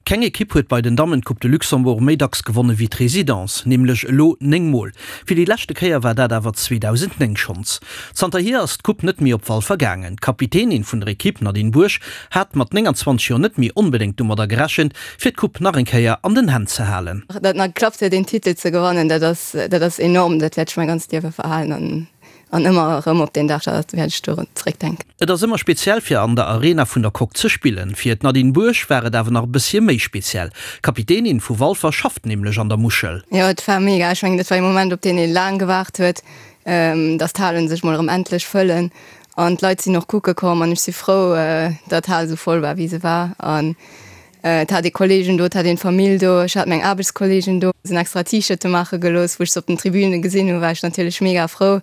Keng Ekipp huet bei den Dammen d'Coupe de Luxembourg méi dacks gewonne wéi d'Résidence, nämlech elo 9 Mol. Fir déi leschte Kéier war dat awer 2009 schonns. Zanterhier ass d'Coupe net méi op Walfer gaangen. D'Kapitänin vun der Ekipp, Nadine Buerg, hat mat 29 Joer net méi onbedéngt domadder gerechent, fir d'Coupe nach eng Kéier an den Hänn ze halen. Datt nach geklappt huet een Titel ze gewannen, dat ass dat ass enorm, dat wäert ech mäi ganzt Liewe verhalen an An ëmmer erëm op deen Dag da wäert ech dorun zeréckdenken. Et ass ëmmer speziell fir an der Arena vun der Coque ze spillen. Fir d'Nadine Buerg war et awer nach e bësschen méi speziell. D'Kapitänin vu Walfer schafft nämlech an der Muschel. Jo, et war mega. Ech mengen, dat war ee Moment, op deen ee laang gewaart huet, dass d'Halen sech mol erëm endlech fëllen. An d'Leit sinn och kucke komm an ech si frou, datt d'Hal esou voll war, wéi se war. An Et hat ee Kollegen do, et hat een d'Famill do, ech hat meng Aarbechtskollegen do, sinn extra T-Shirte maache gelooss. Wou ech se op den Tribüne gesinn hunn, war ech natierlech mega frou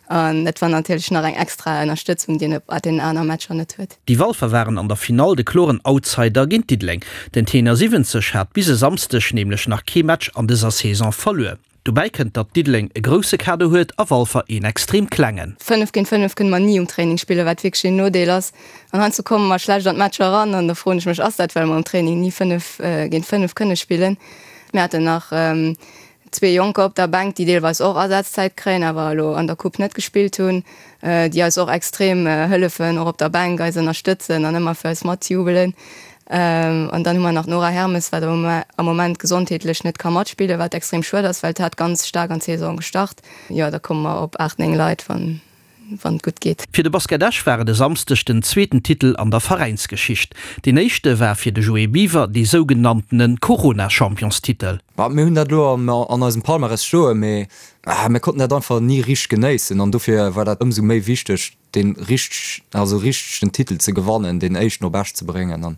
an dat war natierlech nach eng extra Ënnerstëtzung, déi een op deenen aner Matcher net huet. Déi Walfer waren an der Finall de kloren Outsider géint Diddeleng. Den Tenor 70 hat bis e Samsdeg nämlech nach kee Match an dëser Saison verluer. Dobäi kënnt, datt Diddeleng e grousse Kader huet a Walfer een extrem klengen. 5 géint 5 kënne mer ni um Training spillen, wat wierklech een Nodeel ass. An heiansdo komme mer schlecht an d'Matcher eran an da froen ech mech, ass dat well mer um Training ni 5 géint 5 kënne spillen? Mir haten nach zwee Jonker op der Bänk, déi deelweis och Asazzäit kréien, awer elo an der Coupe net gespillt hunn, déi eis och extrem hëllefen, och op der Bänk eis ënnerstëtzen an ëmmer fir eis matjubelen. An dann hu mer nach d'Nora Hermes, wat am Moment gesondheetlech net ka matspillen, wat extrem schued ass, well d'hat ganz staark an d'Saison gestart. Jo, da komme mer op 8, 9 Leit, wann et gutt geet. Fir de Basket Esch war et e Samsdeg den zweeten Titel an der Veräinsgeschicht. Deen éischte war fir de Joé Biwer dee sougenanntene Corona-Championstitel. Mir hunn dat elo an eisem Palmarès stoen, mee mir konnten dat einfach ni richteg genéissen an dofir war dat ëmsou méi wichteg, deen richteg, also richteg den Titel ze gewannen, deen éischten op Esch ze bréngen an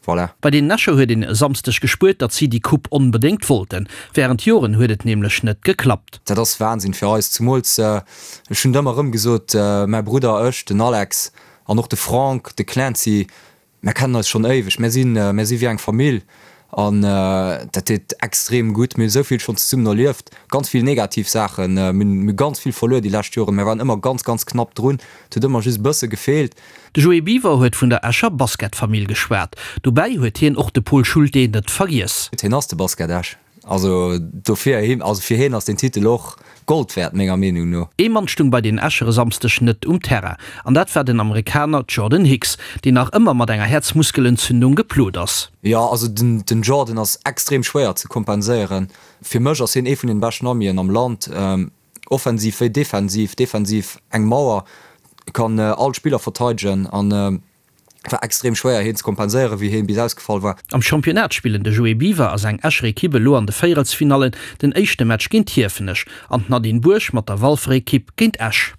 voilà. Bei den Escher huet een e Samsdeg gespuert, datt si déi Coupe onbedéngt wollten. Wärend Joren huet et nämlech net geklappt. Dat ass Wahnsinn fir eis, zumools, ech hunn et ëmmer erëm gesot, mäi Brudder, ech, den Alex an och de Franck, de Clancy, Mär kennen eis schonn éiweg, mär sinn, mär si wéi eng Famill an dat deet extrem gutt. Mir hu sou vill schonn zesummen erlieft, ganz vill negativ Saachen, mir hunn, mir hu ganz vill verluer déi lescht Joren, mär waren ëmmer ganz, ganz knapp drun, et huet ëmmer just e bësse gefeelt. De Joé Biwer huet vun der Escher Basketfamill geschwat. Dobäi huet hien och de Pol Schulte net vergiess. Hien ass de Basket Esch. Also dofir, also fir hien ass deen Titel och Gold wäert, menger Meenung no. Ee Mann stung bei den Escher e Samsdeg net um Terrain, an dat war den Amerikaner Jordan Hicks, deen nach ëmmer mat enger Häerzmuskelentzündung geplot ass. Jo, also den Jordan ass extrem schwéier ze kompenséieren. Fir mech ass hien ee vun den beschten Amien am Land, offensiv wéi defensiv. Defensiv eng Mauer, kann all Spiller verteidegen an war extrem schwéier heen ze kompenséieren wéi heen bis ausgefall war. Am Championnat spillen de Joé Biwer a seng Escher Ekipp elo an de Véierelsfinallen den éischte Match géint Hiefenech an d'Nadine Buerg mat der Walfer Ekipp géint Esch.